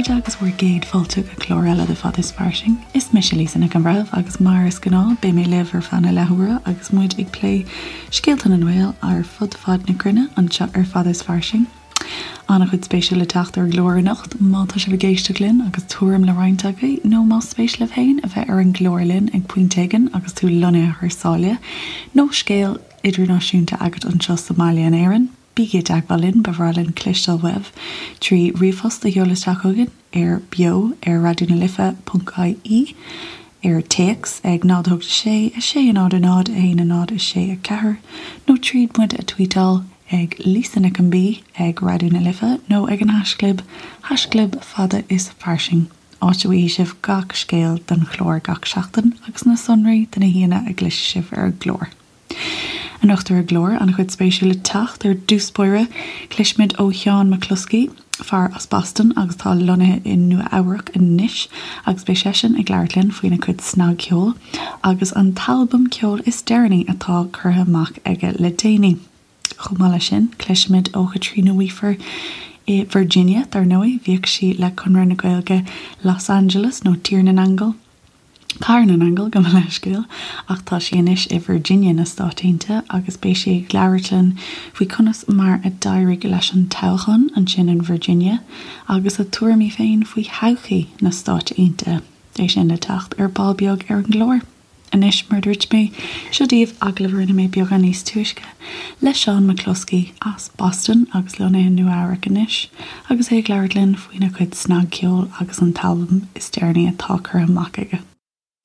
chairde agus bhur gcéad fáilte go clár eile de Fada is Fairsing. Is mise Lisa Nic an Bhreithimh agus mar is gnáth beidh mé libh ar feadh na leathuaire agus muid ag plé scéalta na nGael ar fud fad na cruinne anseo ar Fada is Fairsing. An-chuid spéisiúil le teacht ar an gclár anocht má tá sibh ag éisteacht linn agus tuairim le roinnt agaibh nó más spéis libh féin a bheith ar an gclár linn ag pointe éigin agus tú lonnaithe thar sáile nó scéal idirnáisiúnta agat anseo sa mbaile in Éirinn. Bígí i dteagmháil linn, ba bhreá linn cloisteáil uaibh trí ríomhphost a sheoladh isteach chugainn ar beo ar raidió na life ponc ie, ar téacs ag 0 8 6 6 0 0 1 0 6 4 nó tríd muid a tvuíteáil ag Lisa Nic an B ag Raidió na Life nó ag an haischlib haischlib fada is fairsing, áit a bhfaighidh sibh gach scéal don chlár gach seachtain agus na sonraí do na haíonna a gcloisfidh sibh ar an gclár. Anocht ar an gclár, an-chuid spéisiúil le teacht. Ar dtús báire, cloisfimid ó Sheán McCloskey, fear as Boston agus atá lonnaithe i Nua Eabhrac anois, agus beidh seisean ag labhairt linn faoina chuid snagcheoil agus an t-albam ceoil is deireanaí atá curtha amach aige le déanaí. Chomh maith leis sin, cloisfimid ó Chaitríona Weafer i Virginia, dar ndóigh, bhíodh sí le Conradh na Gaeilge Los Angeles, nó Tír na nAingeal, Cathair na nAingeal, gabh mo leithscéal, ach tá sí anois i Virginia na Stáit Aontaithe agus beidh sí ag labhairt linn faoi conas mar a d'éirigh leis an toghchán ansin in Virginia agus a tuairimí féin faoi thodhchaí na Stáit Aontaithe. É sin le teacht ar ball beag ar an gclár. Anois, mar a dúirt mé, seo daoibh agallamh a rinne mé beagán níos túisce le Seán McCloskey as Boston agus lonnaithe i Nua Eabhrac anois agus é ag labhairt linn faoina chuid snagcheoil agus an t-albam is deireanaí atá curtha amach aige.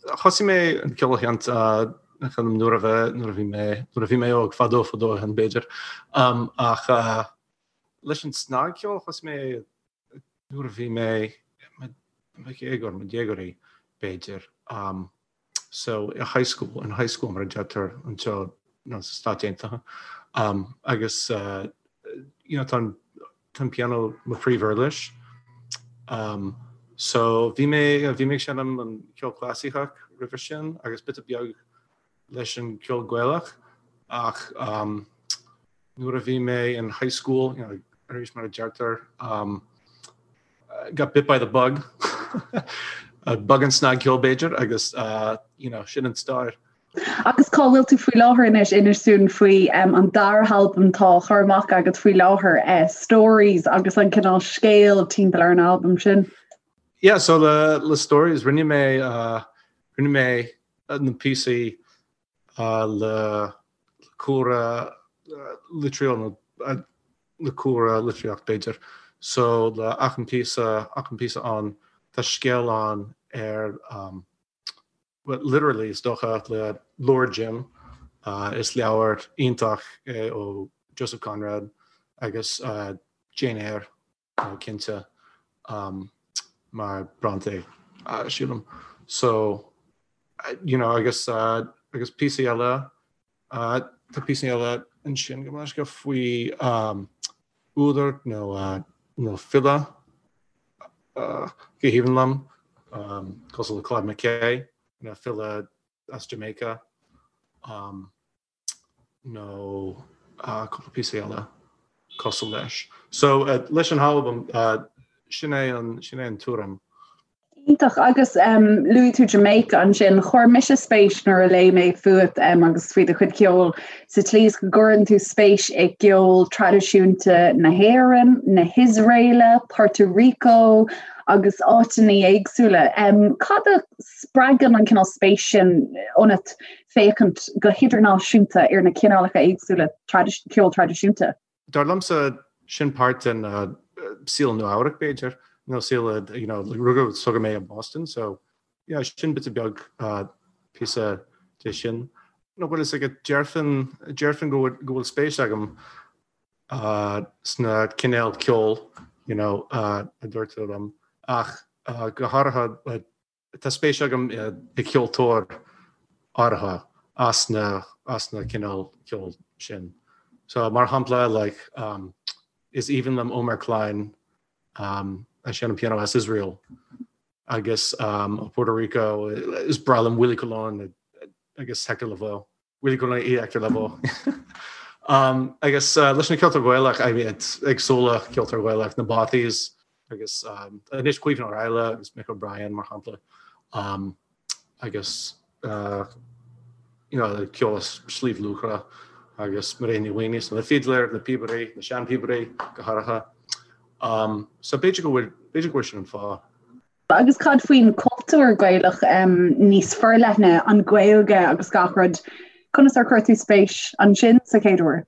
Thosaigh mé an ceol a sheinnt nuair a nuair a bhí mé nuair a bhí mé óg fadó fadó ó shin b'fhéidir ach leis an snagcheol thosaigh mé nuair a bhí mé i mo dhéagóir, mo dhéagóirí b'fhéidir, so i high school, in high school mar a deirtear anseo nó sa Stáit Aontaithe. Agus you know tá an tá an pianó mo phríomhuirlis. So bhí mé bhí mé ag seinm an ceol clasaiceach roimhe sin agus píosa beag leis an gceol Gaelach ach nuair a bhí mé in high school, you know, arís mar a deirtear, um, got bit by the bug, bug an snagcheol b'fhéidir agus uh, you know, sin an stair. Agus cá bhfuil tú faoi láthair anois inis dúinn faoi um, an dara halbam atá á chur amach agat faoi láthair uh, Stories agus an cineál scéal timpeall ar an albam sin. Yeah, so le, le Stories rinne mé uh, rinne mé na píosaí le cúlra litríocht nó le cúlra litríocht b'fhéidir. So le achan píosa achan píosa ann tá scéal ann ar well literally is dócha le Luar Jim is leabhar iontach é ó Joseph Conrad agus Jane Eyre cinnte mar Bronte sílim. So you know agus agus píosaí eile tá píosaí eile ansin go mbeidh faoi údar nó nó file go haoibhinn liom cosúil le Claude McKay nó file as Jamaica. nó cúpla píosa eile cosúil leis. So leis an albam sin é an sin é an tuairim. Iontach agus luaigh tú Jamaica ansin, chuir mise spéis nuair a léigh mé fút agus faoi do chuid ceoil sa tslí is go gcuireann tú spéis i gceol traidisiúnta na hÉireann, na hIosraeile, Puerto Rico agus áiteanna éagsúla. Cad a spreagann an cineál spéis sin ionat féachaint go hidirnáisiúnta ar na cineálacha éagsúla ceoil traidisiúnta. Dar liomsa, sin páirt den saol Nua Eabhrac, b'fhéidir, nó saol, you know, rugadh is tógadh mé i mBoston, so, yeah, sin bit beag píosa de sin. Nó bhfuil fhios agat, déarfainn, déarfainn go bhfuil, go bhfuil spéis agam sna cinéal ceoil, you know, a dúirt tú liom, ach go háirithe, Tá spéis agam i gceoltóir áirithe as na as na cineál ceoil sin. So mar shampla like um, is aoibhinn liom Omer Klein um, a sheinneann pianó as Israel agus um, ó Puerto Rico is breá liom Willie Colon agus Hector Lavoe. Willie Colon i Hector Lavoe. um, agus uh, leis na ceoltóir Gaelach I mean, éagsúla ceoltóir Gaelach na Bothy's. Agus anois Caoimhín Ó Raghallaigh agus Mick O'Brien mar shampla agus you know ceol as Sliabh Luachra agus Mairéad Ní Mhaonaigh, na fidléir, na píobairí, na seanphíobairí go háirithe. So b'fhéidir go bhfuil, b'fhéidir go bhfuil sin an fáth. Agus cad faoin cultúr Gaelach níos forleithne, an Ghaeilge agus gach rud, conas ar chuir tú spéis ansin sa chéad uair?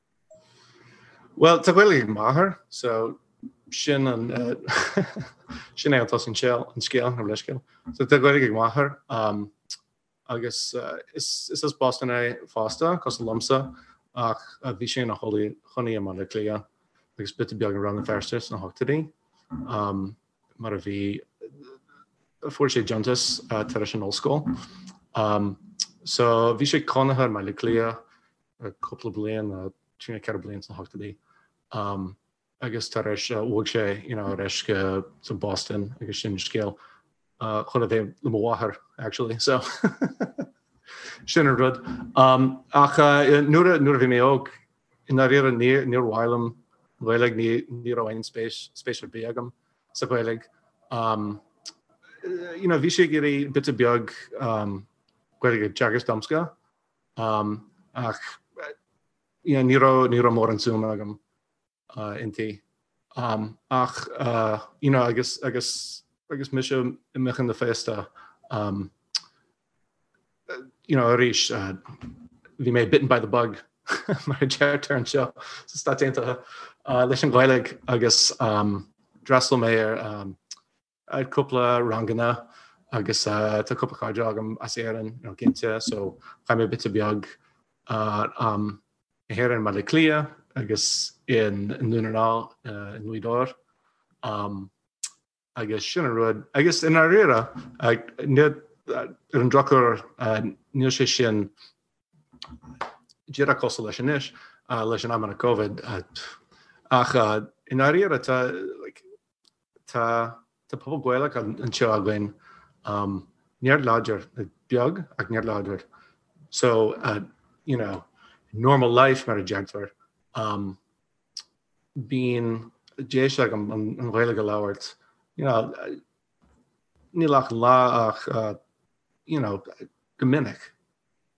Bhuel, tá Gaeilge ag m'athair, so sin an sin é an tús an scéal, an scéal, an leithscéal. So tá Gaeilge ag m'athair um, agus uh, is, is as Boston é fosta, cosúil liomsa, ach uh, bhí sé ina chónaí i mBaile Átha Cliath agus píosa beag i Rann na Feirste sna hochtóidí. Um, mar a bhí fuair sé deontas uh, tar éis an ollscoil. Um, so bhí sé cónaithe i mBaile Átha Cliath cúpla bliain, 3 nó 4 bliain sna hochtóidí agus tar éis bhog sé you know ar ais go Boston agus sin scéal chun a bheith le mo mháthair actually so sin an rud. Ach nuair a nuair a bhí mé óg i ndáiríre níor níor mhaith liom Gaeilge ní ní raibh aon spéis spéis ar bith agam sa Ghaeilge. You know bhí sé ag iarraidh píosa beag Gaeilge a teagasc domsa Ach ní raibh ní raibh mórán suim agam inti. Ach you know agus agus agus mise i mo dhuine féasta you know arís bhí mé bitten by the bug mar a deirtear anseo sna Stáit Aontaithe leis an Ghaeilge agus d'fhreastail mé ar ar cúpla ranganna agus tá cúpla cairde agam as Éirinn you know cinnte so chaith mé píosa beag am i hÉirinn i mBaile Átha Cliath agus i nDún na nGall i nGaoth Dobhair agus sin an rud agus i ndáiríre ar an drochuair níl sé sin díreach cosúil leis anois leis an amanna Covid ach i ndáiríre tá like Tá tá pobal Gaelach anseo againn, neart láidir, beag ach neart láidir. So, you know, normal life mar a deirtear, bíonn deis agam an Ghaeilge a labhairt, you know, níl achan lá ach, you know, go minic.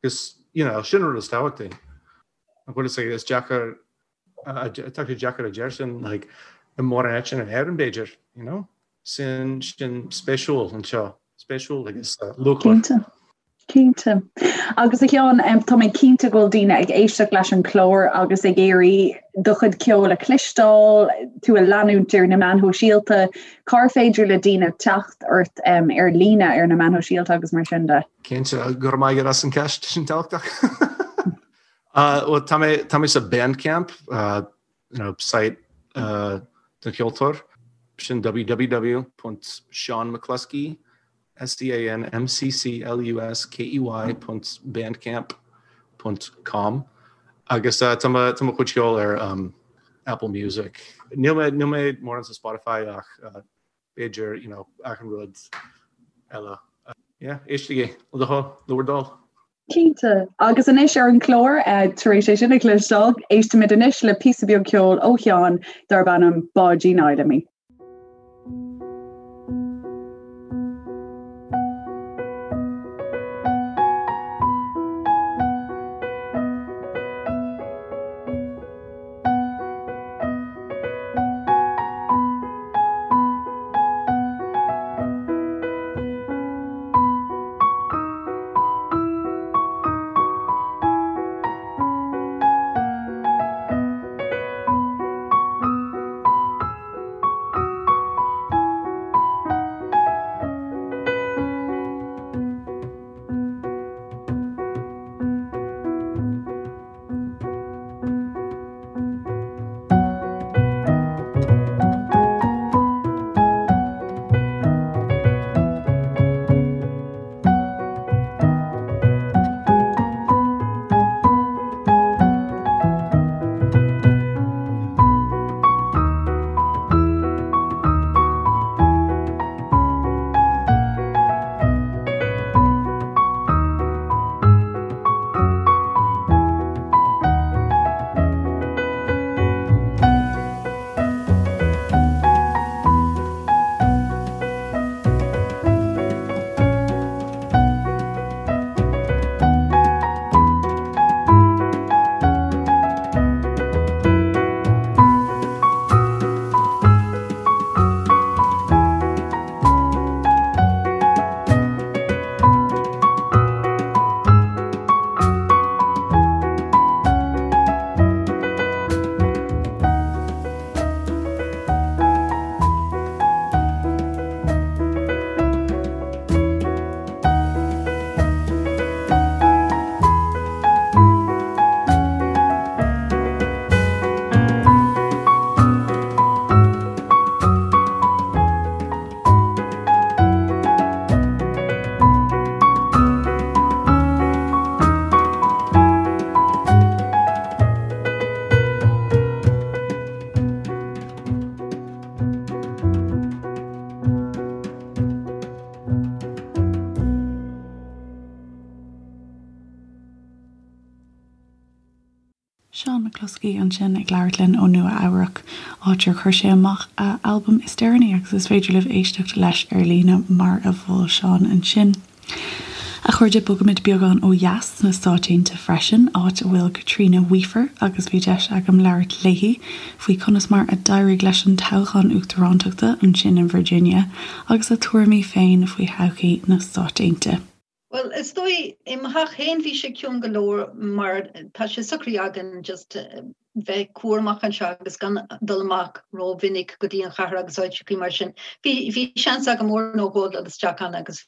Agus, you know, sin an rud is tábhachtaí. An bhfuil a fhios agat, is deacair Tá sé deacair a deir sin like i mórán áiteanna in Éirinn b'fhéidir, you know? Sin sin spéisiúil anseo, spéisiúil agus luachmhar. Cinnte. Cinnte. Agus a Sheáin, tá mé cinnte go bhfuil daoine ag éisteacht leis an chlár agus ag iarraidh do chuid ceoil a chloisteáil, tú a leanúint ar na meáin shóisialta. Cár féidir le daoine teacht ort ar líne ar na meáin shóisialta agus mar sin de? Cinnte, go raibh maith agat as an ceist, sin tábhachtach. Bhuel, tá mé, tá mé sa Bandcamp, you know, site don cheoltóir, sin www.seanmccluskey, S-E-A-N-M-C-C-L-U-S-K-E-Y ponc bandcamp ponc com agus tá mo, tá mo chuid ceoil ar Apple Music. Níl mé, níl mé mórán sa Spotify ach b'fhéidir, you know, achan rud eile. Yeah, éistigí, le do thoil, le bhur dtoil. Cinnte. Agus anois ar an chlár, tar éis é sin a chloisteáil, éistimid anois le píosa beag ceoil ó Sheán darb ainm Báidín Fheidhlimí. McCluskey ansin ag labhairt linn ó Nua Eabhrac, áit ar chuir sé amach a albam is deireanaí agus is féidir libh éisteacht leis ar líne mar a mhol Seán ansin. A chairde, bogaimid beagán ó dheas sna Stáit Aontaithe freisin, áit a bhfuil Caitríona Weafer agus bhí deis agam labhairt léi faoi conas mar a d'éirigh leis an toghchán uachtarántachta ansin in Virginia agus a tuairimí féin faoi thodhchaí na Stáit Aontaithe. Bhuel, is dóigh, i mo theach féin bhí sé ciúin go leor mar tá sé socraithe againn just bheith cúramach anseo agus gan dul amach rómhinic go dtí an chathair agus áiteachaí mar sin. Bhí, bhí seans agam uair nó dhó dul isteach ann agus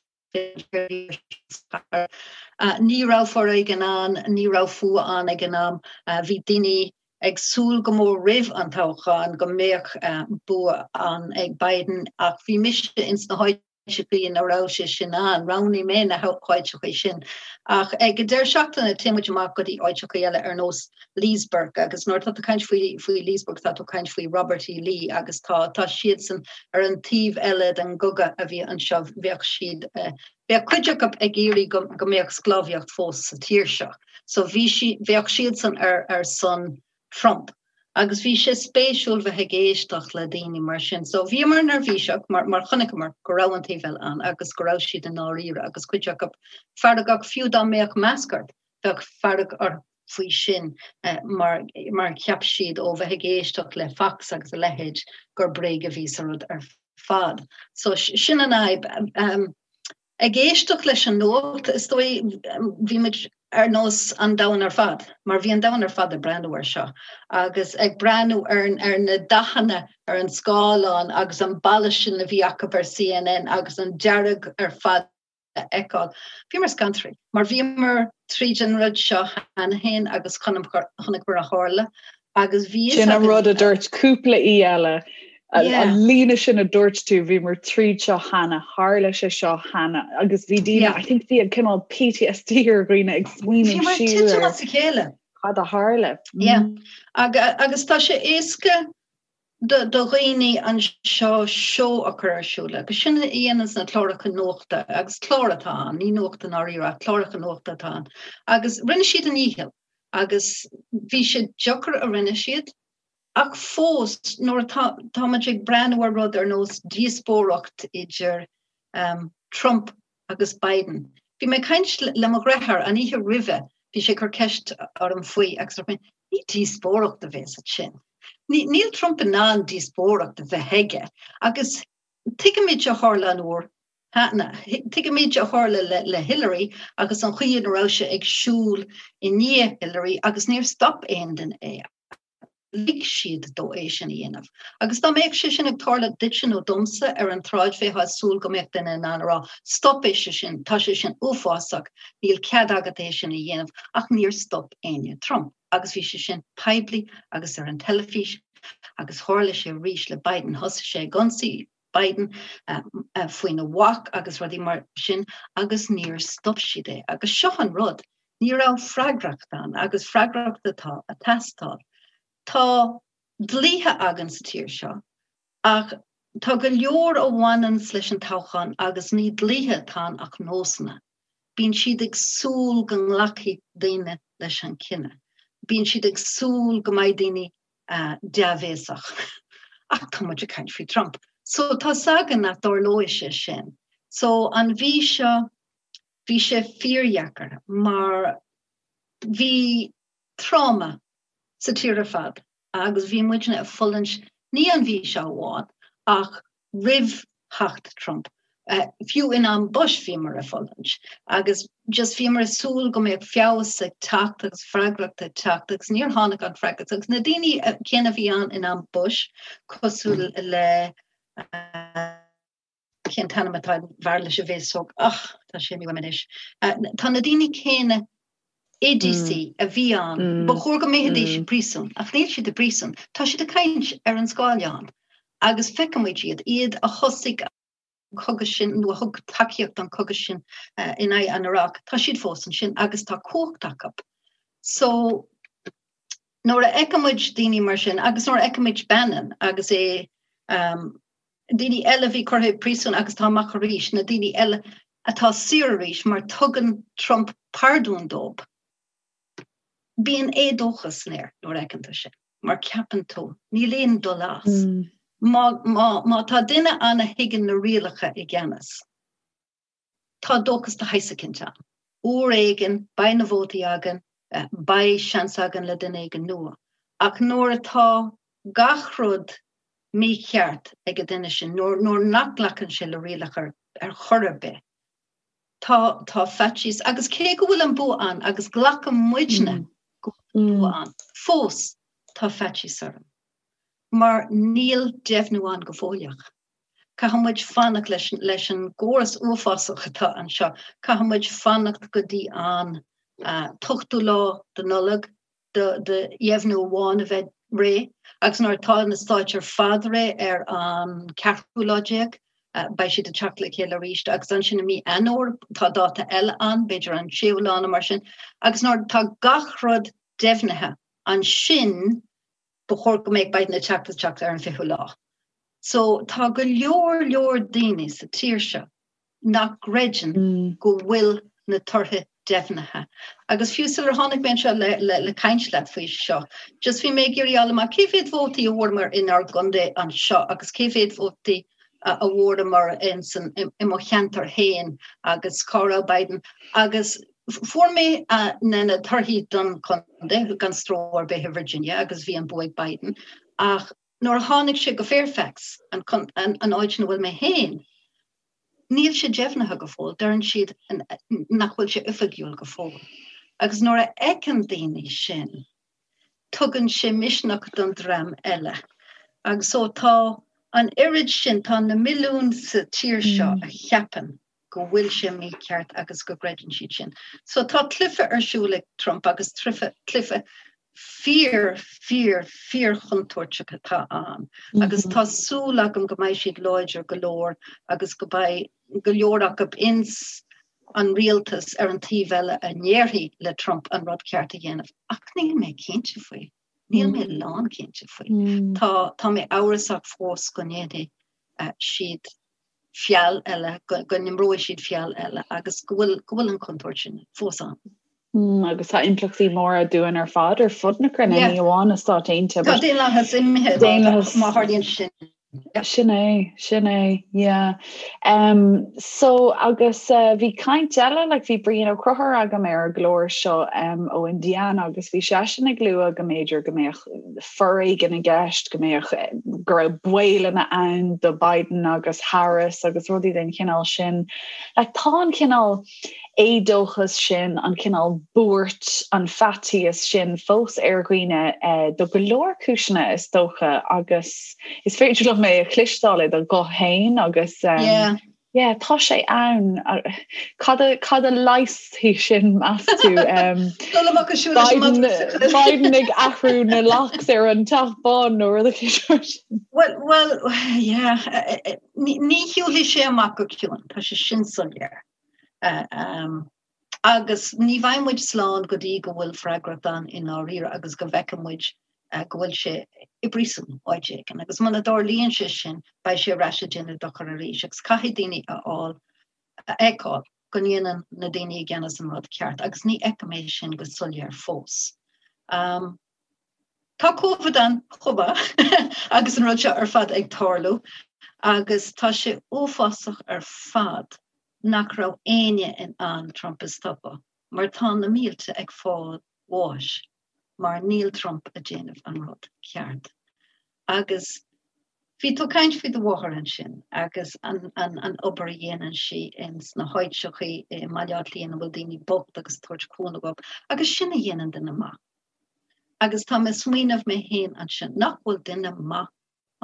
ní raibh foréigean ann, ní raibh fuath ann ag an am. Bhí daoine ag súil go mór roimh an toghchán go mbeadh bua ann ag Biden ach bhí mise ins na háiteachaí áiteachaí ina raibh sé sin ann. Roghnaigh mé na háiteachaí sin. Ach ag an deireadh seachtaine téann muid amach go dtí áiteachaí eile ar nós Leesburg agus nuair atá tú ag caint faoi faoi Leesburg tá tú ag caint faoi Robert E. Lee agus tá tá siadsan ar an taobh eile den gcogadh a bhí anseo. Bheadh siad bheadh cuid acu ag iarraidh go go mbeadh sclábhaíocht fós sa tír seo. So bhí si bheadh siadsan ar ar son Trump. Agus bhí sé spéisiúil bheith ag éisteacht le daoine mar sin. So bhíomar neirbhíseach mar, mar chonaiceamar go raibh an taobh eile ann agus go raibh siad i ndáiríre agus cuid acu feargach, fiú dá mbeadh masc ort, bheadh fearg orthu faoi sin mar, mar cheap siad ó bheith ag éisteacht le Fox agus a leithéid gur bréag a bhí sa rud ar fad. So sin an fhadhb. Ag éisteacht leis an nuacht, is dóigh, bhí muid ar nós an domhan ar fad, mar bhí an domhan ar fad ag breathnú air seo, agus ag breathnú ar ar na dathanna ar an scáileán agus an balla sin a bhí acu ar CNN agus an dearg ar fad a fheiceáil. Bhíomar scanraithe, mar bhíomar tríd an rud seo cheana féin agus chonaiceamar a tharla Agus bhí Sin an rud a dúirt cúpla aoi eile, an líne sin a dúirt tú, bhíomar tríd seo cheana, tharla sé seo cheana, agus bhí daoine, I think bhí cineál PTSD ar dhaoine ag smaoineamh siar ar as a chéile. Cad a tharla. Yeah. Agus tá sé éasca do dhaoine anseo seó a chur ar siúl, agus sin a dhéananns na cláracha nuachta, agus clár atá ann, ní nuacht i ndáiríre ach cláracha nuachta atá ann, agus rinne siad a ndícheall. agus bhí sé deacair a rinne siad, ach fós nuair atá tá muid ag breathnú ar rud ar nós díospóireacht idir Trump agus Biden. Bhí mé ag caint le mo dheartháir an oíche roimhe, bhí sé ag cur ceist orm faoi agus dúirt mé, ní díospóireacht a bhéas ansin. Níl Trump in ann díospóireacht a bheith aige agus tuigimid a tharla an uair cheana. Tuigimid a tharla le Hillary agus an chaoi ina raibh sé ag siúl i ndiaidh Hillary agus níor stop aon duine é. Lig siad dó é sin a dhéanamh. Agus dá mbeadh sé sin ag tarlú duitse nó domsa ar an tsráid bheifeá ag súil go mbeadh duine in ann a rá 'stop é sin, tá sé sin uafásach, níl cead agat é sin a dhéanamh' ach níor stop éinne Trump. Agus bhí sé sin poiblí agus ar an teilifís agus tharla sé arís le Biden. Thosaigh sé ag ionsaí Biden faoina mhac agus rudaí mar sin agus níor stop siad é. Agus seo an rud, ní raibh freagracht ann agus freagracht atá ag teastáil. Tá dlíthe againn sa tír seo ach tá go leor a bhaineanns leis an toghchán agus ní dlíthe atá ann ach nósanna. Bíonn siad ag súil go nglacfaidh daoine leis an cinneadh. Bíonn siad ag súil go mbeidh daoine dea-bhéasach. Ach tá muid ag caint faoi Trump. So tá's againn nach dtarlóidh sé sin. So an mhí seo, bhí sé fíordheacair mar bhí tráma sa tír ar fad agus bhí muidne ag fulaingt ní an mhí seo amháin ach roimh theacht Trump. Fiú in am Bush bhíomar ag fulaingt agus just bhíomar ag súil go mbeadh feabhas ag teacht agus freagracht ag teacht agus níor tháinig an freagracht agus na daoine céanna a bhí ann in am Bush cosúil le cén t-ainm atá ar an bhfear leis an bhféasóg ach tá sé imithe uaim anois. Tá na daoine céanna i DC a bhí ann, ba chóir go mbeidís i bpríosún, ach níl siad i bpríosún. Tá siad ag caint ar an scáileán agus feicimid iad, iad a thosaigh an cogadh sin nó a thug tacaíocht don chogadh sin in aghaidh an Iraq, tá siad fós ansin agus tá cumhacht acu. So nuair a fheicimid daoine mar sin agus nuair a fheicimid Bannon agus é daoine eile a bhí curtha i bpríosún agus atá amach arís, na daoine eile atá saor arís mar tugann Trump pardún dóibh. Bíonn éadóchas san aer nuair a fheiceann tú sin, mar ceapann tú, níl aon dul as. Má, má, má tá duine ann a thuigeann na rialacha i gceannas, tá dóchas de shaghas eicínt ann. Uair éigin, beidh na vótaí againn, beidh seans againn le duine éigin nua. Ach nuair atá gach rud mícheart ag an duine sin, nuair, nuair nach nglacann sé le rialacha ar chor ar bith, Tá, tá faitíos, agus cé go bhfuil an bua ann, agus glacann muidne go bhfuil an bua ann, fós tá faitíos orm. Mar níl deimhniú ann go fóilleach. Caithfidh muid fanacht leis, leis an gcóras uafásach atá anseo, caithfidh muid fanacht go dtí an t-ochtú lá de Nollaig, do dheimhniú amháin a bheith réidh agus nuair atá na stáit ar fad réidh ar an ceathrú lá déag, beidh siad ag teacht le chéile arís agus ansin i mí Eanáir tá dáta eile ann, b'fhéidir an séú lá nó mar sin, agus nuair atá gach rud deimhnithe, ansin ba chóir go mbeadh Biden ag teacht isteach ar an fichiú lá. So tá go leor leor daoine sa tír seo nach gcreideann go bhfuil na torthaí deimhnithe. Agus fiú sular tháinig mé anseo le, le, le caint leat faoi seo, just bhí mé ag iarraidh fháil amach cé mhéad vótaí a bhfuaireamar inár gcontae anseo agus cé mhéad vótaí a bhfuaireamar in san, i, i mo cheantar féin agus cá raibh Biden. Agus fuair mé na, na torthaí don chontae gan stró ar bith i Virginia agus bhí an bua ag Biden. Ach nuair a tháinig sé go Fairfax, an, an, an áit ina bhfuil mé féin, Níl sé deimhnithe go fóill, deireann siad nach bhfuil sé oifigiúil go fóill. Agus nuair a fheiceann daoine sin, tugann sé misneach don dream eile. Agus so tá an oiread sin, tá na milliúin sa tír seo a cheapann go bhfuil sé mícheart agus go gcreideann siad sin. So tá cluiche ar siúl ag Trump agus cluiche fíor, fíor, fíor-chontúirteach atá ann agus tá súil agam go mbeidh siad láidir go leor agus go mbeidh go leor acu ins an rialtas ar an taobh eile a ndéarfaidh le Trump an rud ceart a dhéanamh. Ach níl mé cinnte faoi. Níl mé lánchinnte faoi. Tá, tá mé amhrasach fós go ndéanfaidh siad feall eile, go n-imreoidh siad feall eile agus go bhfuil, go bhfuil an chontúirt sin fós ann. Mm, agus tá impleachtaí móra dúinn ar fad ar fud na cruinne, ní amháin na Stáit Aontaithe. Tá daonlathas imithe daonlathas má tharlaíonn sin. Sin é, sin é, yeah. Um, so agus uh, bhí caint eile, like, bhí Brian Ó Conchúir agam ar an gclár seo um, ó Indiana agus bhí seisean ag lua go mb'fhéidir go mbeadh foréigean i gceist, go mbeadh go raibh baolanna ann do Biden agus Harris agus rudaí den chineál sin. Like, tá an cineál éadóchas sin, an cineál buairt, an faitíos sin fós ar dhaoine eh, do go leor cúiseanna is dócha agus is féidir liom é a chloisteáil i do ghuth féin agus um, yeah. Yeah, tá sé ann. Cad a, cad a leigheasfaidh sin meas tú? Um, Biden, Biden ag athrú na locks ar an Teach Bán nó rud éigin. Well, well, yeah, eh, eh, ní, ní shiúlfaidh sé amach go ciúin, tá sé sin soiléir. Eh, um, agus ní bheidh muid slán go dtí go bhfuil freagracht ann i ndáiríre agus go bhfeicfidh muid go bhfuil sé i bpríosún áit éigin. Agus muna dtarlaíonn sé sin, beidh sé ar ais ag déanamh dochar arís agus caithfidh daoine a fháil, a fheiceáil go ndéanann na daoine i gceannas an rud ceart agus ní fheicim é sin go soiléir fós. Um, tá Covid ann chomh maith agus an rud seo ar fad ag tarlú agus tá sé uafásach ar fad nach raibh éinne in ann Trump a stopadh mar tá na mílte ag fáil bháis mar níl Trump ag déanamh an rud ceart. Agus bhí tú ag caint faoi do mháthair ansin agus an, an, an obair a dhéanann sí ins na háiteachaí i mBaile Átha Cliath ina bhfuil daoine bocht agus tabhairt cúnamh dóibh agus sin a dhéanann duine maith. Agus tá mé ag smaoineamh mé féin ansin nach bhfuil duine maith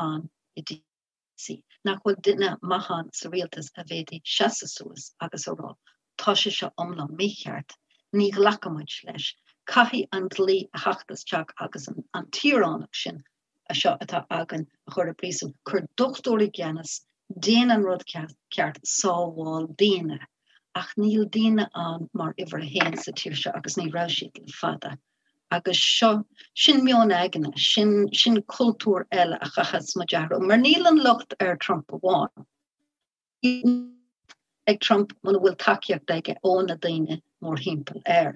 ann i DC, nach bhfuil duine maith ann sa rialtas a bhféadfaidh seasamh suas agus a rá, tá sé seo iomlán mícheart, ní ghlacfaidh muid leis, caithfidh an dlí a theacht isteach agus an tíoránach sin seo atá againn a chur i bpríosún, cuir dochtúir i gceannas, déan an rud ceart, sábháil daoine. Ach níl daoine ann mar uimhir a haon sa tír seo agus ní raibh siad le fada. Agus seo, sin meon aigne, sin, sin cultúr eile a chaithfeas muid athrú. Mar níl an locht ar Trump amháin. Ag Trump muna bhfuil tacaíocht aige ó na daoine. mórthimpeall air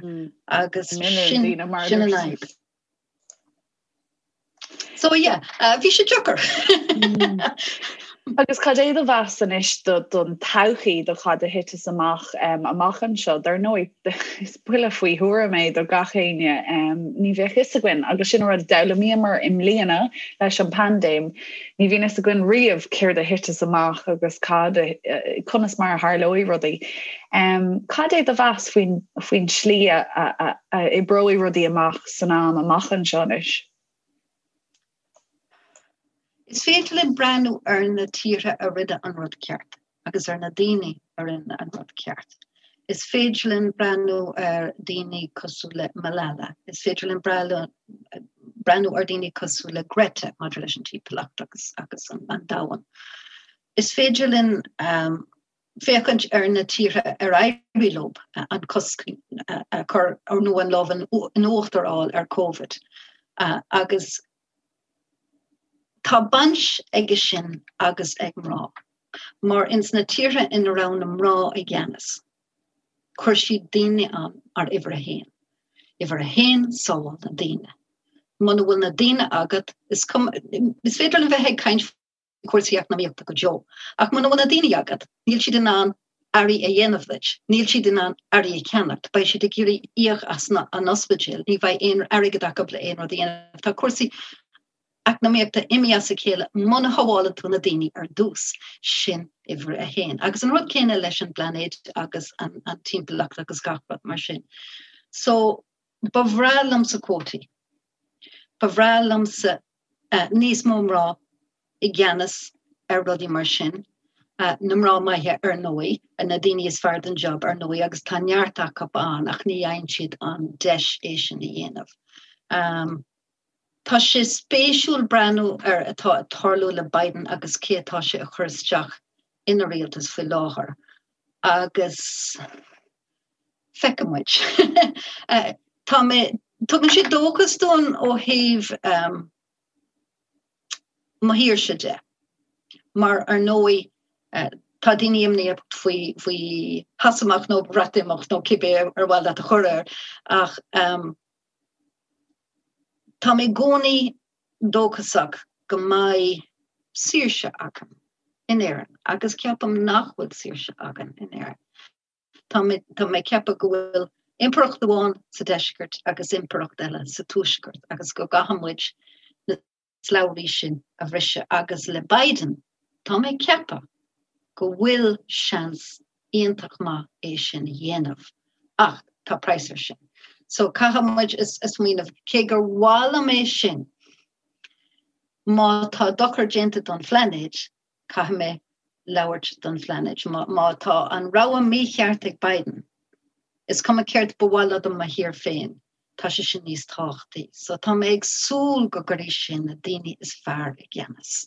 agus sin an fhadhb. So yeah, bhí sé deacair. Agus cad é do mheas anois don todhchaí do cad a thiteas amach amach anseo? Dar ndóigh, is buille faoi thuairim é do gach éinne. Ní bheadh fhios againn, agus sin an rud a d'fhoghlaimíomar i mbliana leis an bpaindéim, ní bhíonn fhios againn riamh céard a thiteas amach agus cad, conas mar a tharlóidh rudaí. Cad é do mheas faoin faoin tslí a oibreoidh rudaí amach san am amach anseo anois? Is féidir linn breathnú ar na tíortha a rinne an rud ceart agus ar na daoine a rinne an rud ceart. Is féidir linn breathnú ar daoine cosúil le Malala. Is féidir linn breathnú ar daoine cosúil le Greta maidir leis an timpeallacht agus agus an an domhan. Is féidir linn um, féachaint ar na tíortha ar éirigh leo an cosc a chur nó an lámh in uachtar a fháil ar Covid agus tá baint aige sin agus ag mná, mar ins na tíortha ina raibh na mná i gceannas, chuir siad daoine ann mar uimhir a haon. Uimhir a haon, sábháil na daoine. Muna bhfuil na daoine agat, is cuma, is féidir linn bheith ag caint cúrsaí eacnamaíochta go deo. Ach muna bhfuil na daoine agat, níl siad in ann earraí a dhéanamh duit, níl siad in ann earraí a cheannacht, beidh siad ag iarraidh íoc as an ospidéal, ní bheidh aon airgead acu le aon rud a dhéanamh. Tá cúrsaí eacnamaíochta imithe as a chéile muna shábhálann tú na daoine ar dtús. Sin uimhir a haon. Agus an rud céanna leis an bplainéad agus an timpeallacht agus gach rud mar sin. So, ba bhreá liomsa cuótaí. Ba bhreá liomsa níos mó mná i gceannas ar rudaí mar sin, na mná maithe ar ndóigh, na daoine is fearr don job ar ndóigh agus tá neart acu ann ach ní fhaigheann siad an deis é sin a dhéanamh. Tá sé spéisiúil breathnú ar atá ag tarlú le Biden agus cé atá sé a chur isteach ina rialtas faoi láthair agus feicfidh muid. Tá mé, tugann sé dóchas dúinn ó thaobh mo thírse de, mar ar ndóigh tá daoine imníoch faoi faoi Shasaimeacht nó Breatimeacht nó cibé ar mhaith leat a chur air ach tá mé i gcónaí dóchasach go mbeidh saoirse againn in Éirinn agus ceapaim nach bhfuil saoirse againn in Éirinn. Tá mé tá mé ag ceapadh go bhfuil impireacht amháin sa deisceart agus impireacht eile sa tuaisceart agus go gcaithfidh muid na slabhraí sin a bhriseadh agus le Biden tá mé ag ceapadh go bhfuil seans iontach maith é sin a dhéanamh ach tá praghas air sin. So caithfidh muid a smaoineamh cé gur mhaith liom é sin má tá dochar déanta don phlainéad Caithfidh mé labhairt don phlainéad. Má tá an rogha mícheart ag Biden, is cuma céard ba mhaith liom do mo thír féin, tá sé sin níos tábhachtaí. So tá mé ag súil go gcuirfidh sé na daoine is fearr i gceannas.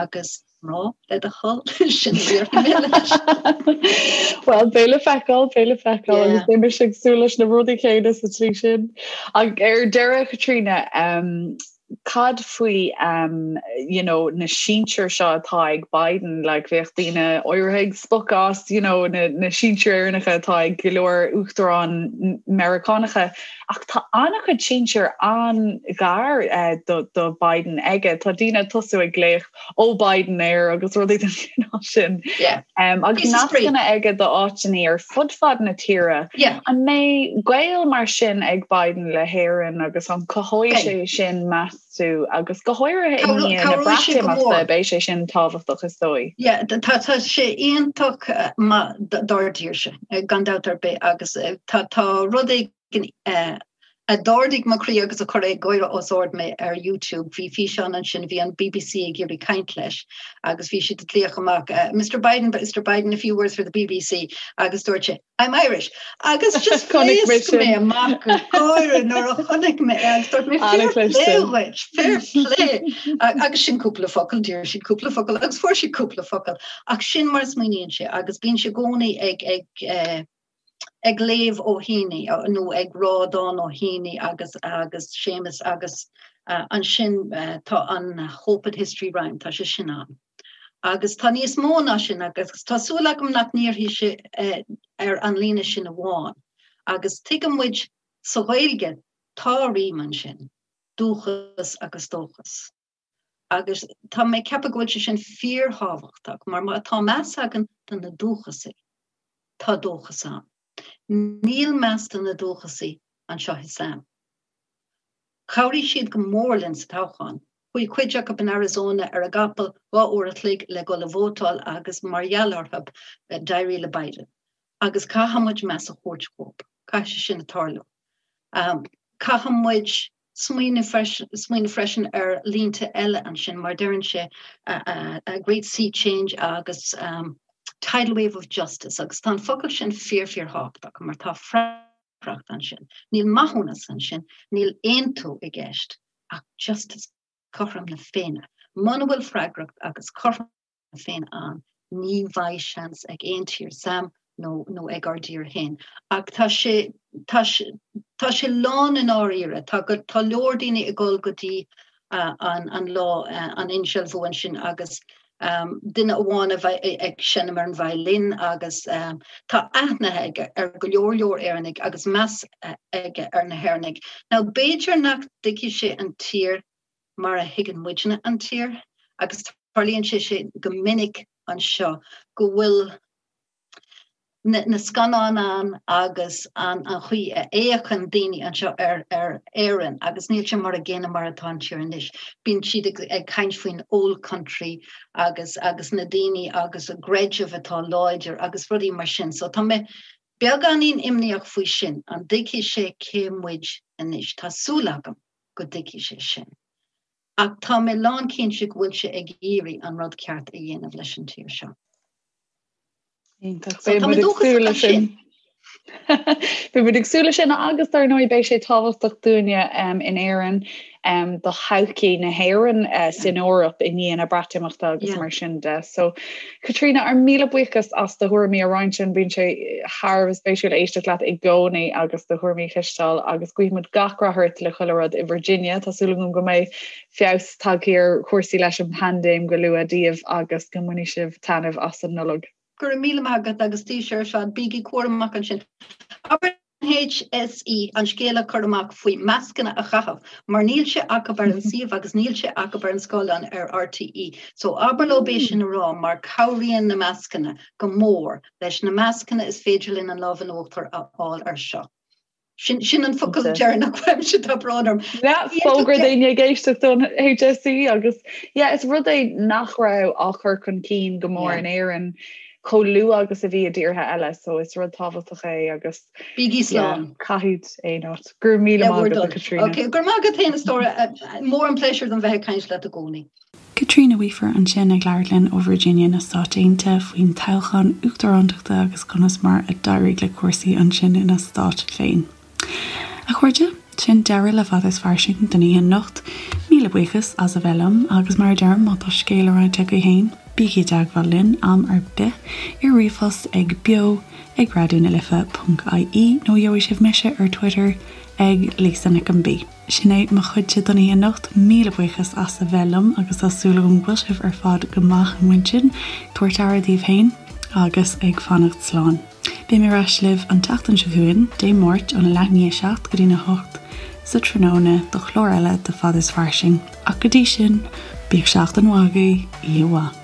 Agus mná, le do thoil, sin a déarfaidh mé leis. Well, beidh le feiceáil, beidh le feiceáil agus beidh mise ag súil leis na rudaí céanna sa tslí sin. Ach ar deireadh, Caitríona, Cad faoi you know na sinsir seo atá ag Biden, like bheadh daoine áirithe ag spochadh as you know na, na sinsir Éireannacha atá ag go leor uachtaráin Meiriceánacha ach tá an-chuid sinsir an-ghar uh, do, do Biden aige. Tá daoine ag tosú ag glaoch ó Biden air agus rudaí den chineál sin. Yeah. Um, agus nascanna aige do áiteanna ar fud fad na tíre. Yeah. An mbeidh gaol mar sin ag Biden le hÉirinn agus an cothóidh sé sin meas tú agus go háirithe i ndiaidh na Breatimeachta beidh sé sin tábhachtach is dóigh. Yeah, tá tá sé iontach eh, maith dár dtírse eh, gan dabht ar bith agus eh, tá tá rud éigin a d'ardaigh mo chroí agus a chuir ag gáire os ard mé ar YouTube. Bhí físeán ansin, bhí an BBC ag iarraidh caint leis agus bhí siad ag glaoch amach, Mr Biden, Mr Biden, a few words for the BBC agus dúirt sé, I'm Irish. Agus just phléasc mé amach ag gáire nuair a chonaic mé é agus dúirt mé, fair play dhuit, fair play. Agus sin cúpla focal, d'iarr siad cúpla focal agus fuair siad cúpla focal. Ach sin mar a smaoiníonn sé agus bíonn sé i gcónaí ag, ag, eh, ag léamh ó Heaney nó ag rá dán ó Heaney agus agus Séamus agus ansin tá an Hope that History Rhyme, tá sé sin ann. Agus tá níos mó ná sin agus tá súil agam nach ndíreoidh sé ar an líne sin amháin. Agus tuigeann muid sa Ghaeilge tá rím ansin, dúchas agus dóchas. Agus tá mé ag ceapadh go bhfuil sé sin fíorthábhachtach mar má tá meas againn do na dúchasaigh, tá dóchas ann. Níl meas do na dúchasaigh anseo i Sam. Chabhraigh siad go mór linn sa toghchán. Chuaigh cuid acu in Arizona ar a gcapall 2 uair a chloig le dul a vótáil agus mar gheall orthu d'éirigh le Biden. Agus caithfidh muid meas a thabhairt dhóibh. Caithfidh sé sin tarlú. Caithfidh muid smaoineamh freisin ar línte eile ansin mar deireann sé a great sea change agus tidal wave of justice agus tá an focal sin fíor fíor thábhachtach mar tá freagracht ansin. Níl maithiúnas ansin, níl aontú i gceist ach justice, cothrom na Féinne. Muna bhfuil freagracht agus cothrom na Féinne ann, ní bheidh seans ag aon tír, Sam nó nó ag ár dtír féin. Ach tá sé tá sé tá sé lán i ndáiríre. Tá go tá leor daoine ag dul go dtí an an lá an insealbhú ansin agus duine amháin a bheidh ag seinm ar an violin agus tá aithne aige ar go leor leor Éireannaigh agus meas aige ar na hÉireannaigh. Now b'fhéidir nach dtuigfidh sé an tír mar a thuigeann muidne an tír agus tarlaíonn sé sin go minic anseo go bhfuil na na scannáin ann agus an an chaoi a fhéachann daoine anseo ar ar Éirinn agus níl sé mar a gcéanna mar atá an tír anois. Bíonn siad ag ag caint faoin old country agus agus na daoine agus a gcreideamh atá láidir agus rudaí mar sin. So tá mé beagáinín imníoch faoi sin, an dtuigfidh sé cé muid anois? Tá súil agam go dtuigfidh sé sin. Ach tá mé lánchinnte go bhfuil sé ag iarraidh an rud ceart a dhéanamh leis an tír seo. Iontach. Beidh muid ag súil leis sin. Beidh muid ag súil leis sin agus dar ndóigh beidh sé tábhachtach dúinne in Éirinn do thodhchaí na hÉireann eh, san Eoraip i ndiaidh na Breatimeachta agus mar sin de. So Caitríona, ár míle buíochas as do thuairimí a roinnt linn, bíonn sé thar a bheith spéisiúil éisteacht leat i gcónaí agus do thuairimí a chloisteáil agus guímid gach rath ort le chuile rud i Virginia. Tá súil agam go mbeidh feabhas tagtha ar chúrsaí leis an bpaindéim go luath daoibh agus go mbainfidh sibh taitneamh as an Nollaig. Go raibh míle maith agat agus daoibhse ar fad, bígí cúramach ansin. Abair HSE an scéal a chur amach faoi mascanna a chaitheamh mar níl sé acu ar an suíomh agus níl sé acu ar an scáileán ar RTÉ. So abair leo é sin a rá mar cabhraíonn na mascanna go mór. Leis na mascanna is féidir linn an lámh in uachtar a fháil ar seo. Sin sin an focal deireanach uaimse tá brón orm. Fógra daoine ag éisteacht don HSE agus yeah, is rud é nach raibh á chur chun cinn go mór in Éirinn chomh luath agus a bhí i dtíortha eile, so is rud tábhachtach é agus Bígí slán. Caithfidh aon áit. Go raibh míle maith agat, a Chaitríona. Ok, go raibh maith agat féin a stór, mór an pléisiúr dom bheith ag caint leat i gcónaí. Caitríona Weafer ansin ag labhairt linn ó Virginia na Stáit Aontaithe faoin toghchán uachtarántachta agus conas mar a d'éirigh le cúrsaí ansin ina stát féin. A chairde, sin deireadh le Fada is Fairsing don oíche anocht. Míle buíochas as a bheith liom agus mar a deirim, má tá scéal le roinnt agaibh féin, bígí i dteagmháil linn am ar bith ar ríomhphost ag beo ag raidió na life ponc ie nó gheobhaidh sibh mise ar Twitter ag Lisa Nic an B. Sin é mo chuidse don oíche anocht. Míle buíochas as a bheith liom agus tá súil agam go bhfuil sibh ar fad go maith amuigh ansin, ag tabhairt aire daoibh féin agus ag fanacht slán. Beidh mé ar ais libh an tseachtain seo chugainn, Dé Máirt, óna leath i ndiaidh a 7 go dtína 8 sa tráthnóna do chlár eile de Fada is Fairsing. Ach go dtí sin, bíodh seachtain mhaith agaibh, oíche mhaith.